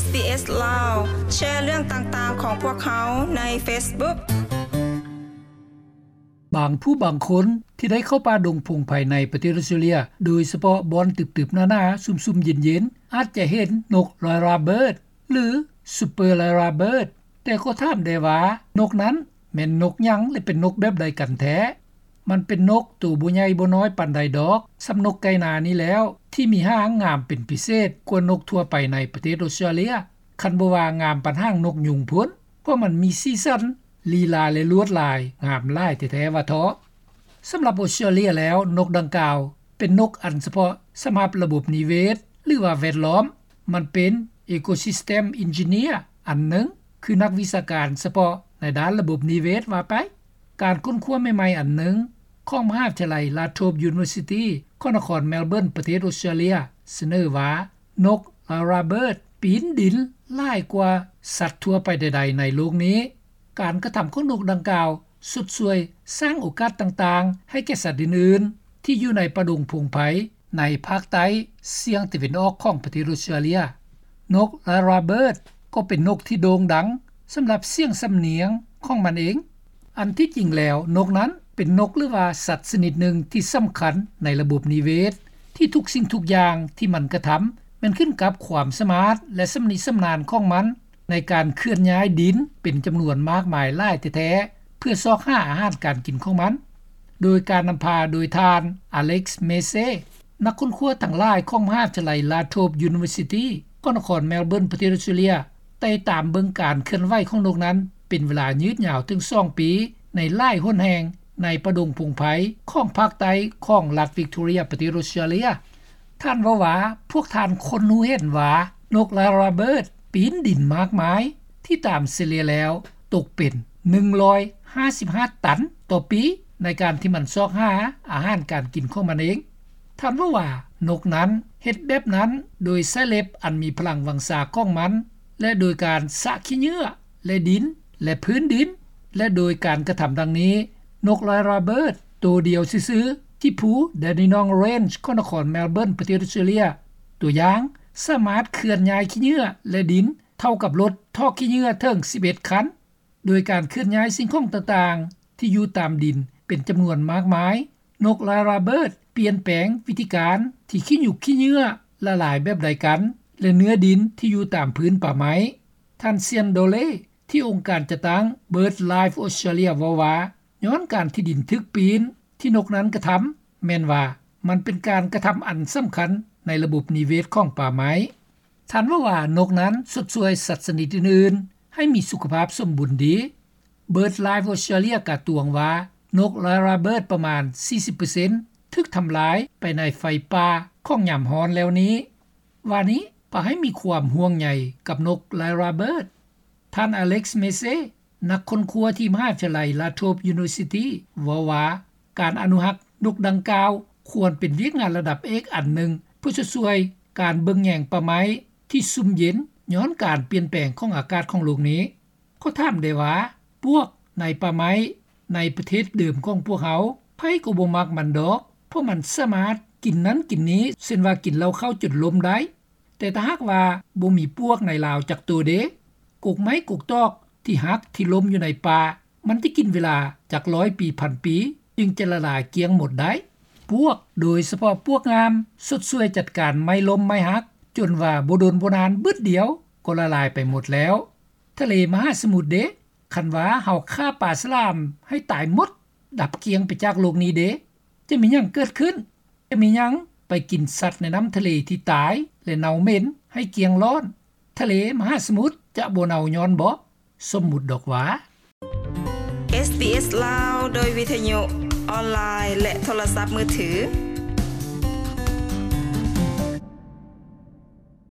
SBS ລາວ ແຊເລື່ອງຕ່າງໆຂອງພວກເຮົາໃນ Facebook. ບາງຜູ້ບາງຄົນທີ່ໄດ້ເຂົ້າປ່າດົງພົງໄພໃນປະເທດອອສເຕຣເລັຍ, ໂດຍສະເພາະບ່ອນຕຶບໆໜາໆ ຊຸ່ມໆເຢັນໆ ອາດຈະເຫັນນົກ Lyrebird ຫຼື Super Lyrebird. ແຕ່ກໍຖາມໄດ້ວ່າ ນົກນັ້ນແມ່ນນົກຫຍັງ ແລະ ເປັນນົກແບບໃດກັນແທ້? ມັນເປັນນົກໂຕບໍ່ໃຫຍ່ບໍ່ນ້ອຍປານໃດດອກ, ສ່ຳນົກໄກ່ນານີ້ແລ້ວ ທີ່ມີຫາງງາມເປັນພິເສດກວ່ານົກທົ່ວໄປໃນປະເທດອອສເຕຣເລັຍ, ຄັນບໍ່ວ່າງາມປານຫາງນົກຍຸງພຸ້ນ, ເພາະມັນມີສີສັນ, ລີລາ ແລະ ລວດລາຍງາມຫຼາຍແທ້ໆວ່າເທາະ. ສຳລັບອອສເຕຣເລັຍແລ້ວ, ນົກດັ່ງກ່າວເປັນນົກອັນສະເພາະສຳລັບລະບົບນິເວດ ຫຼືວ່າແວດລ້ອມ, ມັນເປັນ Ecosystem Engineer ອັນໜຶ່ງ, ຄືນັກວິຊາການສະເພາະໃນດ້ານລະບົບນິເວດວ່າໄປ. ການຄົ້ນຄວ້າໃໝ່ໆອັນໜຶ່ງຂອງມະຫາວິທະຍາໄລ Latrobe University ຂອງນະຄອນ Melbourne ປະເທດອອສເຕຣເລັຍ ສະເໜີວ່າ ນົກ Lyrebird ປີນດິນຫຼາຍກວ່າສັດທົ່ວໄປໃດໆໃນໂລກນີ້. ການກະທຳຂອງນົກດັ່ງກ່າວຊົດຊ່ວຍສ້າງໂອກາດຕ່າງໆໃຫ້ແກ່ສັດອື່ນໆທີ່ຢູ່ໃນປ່າດົງພົງໄພໃນພາກໃຕ້ສຽງຕາເວັນອອກຂອງປະເທດອອສເຕຣເລັຍ. ນົກ Lyrebird ກໍເປັນນົກທີ່ໂດ່ງດັງສຳລັບສຽງສຳນຽງຂອງມັນເອງ. ອັນທີ່ຈິງແລ້ວ ນົກນັ້ນເປັນນົກ ຫຼືວ່າສັດຊະນິດໜຶ່ງທີ່ສຳຄັນໃນລະບົບນິເວດ, ທີ່ທຸກສິ່ງທຸກຢ່າງທີ່ມັນກະທຳແມ່ນຂຶ້ນກັບຄວາມສາມາດ ແລະ ຊຳນິຊຳນານຂອງມັນໃນການເຄື່ອນຍ້າຍດິນເປັນຈຳນວນມາກມາຍຫຼາຍແທ້ໆ ເພື່ອຊອກຫາອາຫານການກິນຂອງມັນ, ໂດຍການນຳພາໂດຍທ່ານ Alex Massey ນັກຄົ້ນຄວ້າທັງຫຼາຍຂອງມະຫາວິທະຍາໄລ Latrobe University ຂອງນະຄອນ Melbourne ປະເທດອອສເຕຣເລັຍ ໄດ້ຕາມເບິ່ງການເຄື່ອນໄຫວຂອງນົກນັ້ນເປັນເວລາຍືດຍາວເຖິງສອງປີ ໃນຫຼາຍຫົນແຫ່ງໃນປ່າດົງພົງໄພຂອງພາກໃຕ້ຂອງລັດ Victoria ປະເທດອອສເຕຣເລັຍ. ທ່ານເວົ້າວ່າ ພວກທ່ານຄົ້ນຮູ້ເຫັນວ່ານົກ Lyrebird ປີນດິນມາກມາຍ ທີ່ຕາມສະເລ່ຍແລ້ວຕົກເປັນໜຶ່ງຮ້ອຍຫ້າສິບຫ້າຕັນຕໍ່ປີ ໃນການທີ່ມັນຊອກຫາອາຫານການກິນຂອງມັນເອງ. ທ່ານເວົ້າວ່າ ນົກນັ້ນເຮັດແບບນັ້ນໂດຍໃຊ້ເລັບອັນມີພະລັງວັງຊາຂອງມັນ ແລະ ໂດຍການສະຂີ້ເຫຍື້ອ ແລະ ດິນ ແລະ ພື້ນດິນ ແລະ ໂດຍການກະທຳດັ່ງນີ້, ນົກ Lyrebird ໂຕດຽວຊື່ໆ ທີ່ພູ Dandenong Range ຂອງນະຄອນ Melbourne ປະເທດອອສເຕຣເລັຍ ຕົວຢ່າງ ສາມາດເຄື່ອນຍ້າຍຂີ້ເຫຍື້ອ ແລະ ດິນເທົ່າກັບລົດຖອກຂີ້ເຫຍື້ອເຖິງສິບເອັດຄັນ. ໂດຍການເຄື່ອນຍ້າຍສິ່ງຂອງຕ່າງໆທີ່ຢູ່ຕາມດິນເປັນຈຳນວນມາກມາຍ, ນົກ Lyrebird ປ່ຽນແປງວິທີການທີ່ຂີ້ຫຍຸກຂີ້ເຫຍື້ອລະລາຍແບບໃດກັນ ແລະ ເນື້ອດິນທີ່ຢູ່ຕາມພື້ນປ່າໄມ້. ທ່ານ Sian Dolley ທີ່ອົງການຈັດຕັ້ງ BirdLife Australia ເວົ້າວ່າ ຍ້ອນການທີ່ດິນຖືກປີນທີ່ນົກນັ້ນກະທຳ ແມ່ນວ່າມັນເປັນການກະທຳອັນສຳຄັນໃນລະບົບນິເວດຂອງປ່າໄມ້. ທ່ານເວົ້າວ່າ ນົກນັ້ນຊົດຊ່ວຍສັດຊະນິດອື່ນໆໃຫ້ມີສຸຂະພາບສົມບູນດີ. BirdLife Australia ກະຕວງວ່າ ນົກ Lyrebird ປະມານສີ່ສິບເປີເຊັນຖືກທຳລາຍໄປໃນໄຟປ່າຂອງຍາມຮ້ອນແລ້ວນີ້. ວ່ານີ້ ປະໃຫ້ມີຄວາມຫ່ວງໃຍກັບນົກ Lyrebird. ທ່ານ Alex Massey ນັກຄົ້ນຄວ້າທີ່ມະຫາວິທະຍາໄລ Latrobe University ເວົ້າວ່າ ການອະນຸຮັກນົກດັ່ງກ່າວຄວນເປັນວຽກງານລະດັບເອກອັນໜຶ່ງ ເພື່ອຊົດຊ່ວຍການເບິ່ງແຍງປ່າໄມ້ທີ່ຊຸ່ມເຢັນຍ້ອນການປ່ຽນແປງຂອງອາກາດຂອງໂລກນີ້. ກໍຖາມໄດ້ວ່າ ປວກໃນປ່າໄມ້ໃນປະເທດເດີມຂອງພວກເຮົາ ໃຜກໍບໍ່ມັກມັນດອກ, ເພາະມັນສາມາດກິນນັ້ນກິນນີ້ ເຊັ່ນວ່າກິນເຫຼົ້າເຂົ້າຈົນລົ້ມໄດ້. ແຕ່ຖ້າຫາກວ່າບໍ່ມີປວກໃນລາວຈັກໂຕເດ? ກົກໄມ້ກົກຕອກທີ່ຫັກທີ່ລົ້ມຢູ່ໃນປ່າ ມັນຈະກິນເວລາຈັກຮ້ອຍປີພັນປີ ຈຶ່ງຈະລະລາຍກ້ຽງໝົດໄດ້. ປວກ ໂດຍສະເພາະປວກງາມ ຊົດຊ່ວຍຈັດການໄມ້ລົ້ມໄມ້ຫັກ ຈົນວ່າບໍ່ດົນບໍ່ນານບຶດດຽວກໍລະລາຍໄປໝົດແລ້ວ. ທະເລມະຫາສະໝຸດເດ? ຄັນວ່າເຮົາຂ້າປາສະຫຼາມໃຫ້ຕາຍໝົດ ດັບກ້ຽງໄປຈາກໂລກນີ້ເດ? ຈະມີຫຍັງເກີດຂຶ້ນ? ຈະມີຫຍັງໄປກິນສັດໃນນ້ຳທະເລທີ່ຕາຍ ແລະ ເນົ່າເໝັນໃຫ້ກ້ຽງລ້ອນ? ທະເລມະຫາສະໝຸດຈະບໍ່ເນົ່າຍ້ອນເບາະ? ສົມມຸດດອກວ່າ. SBS ລາວ ໂດຍວິທະຍຸ, ອອນລາຍ ແລະ ໂທລະສັບມືຖື.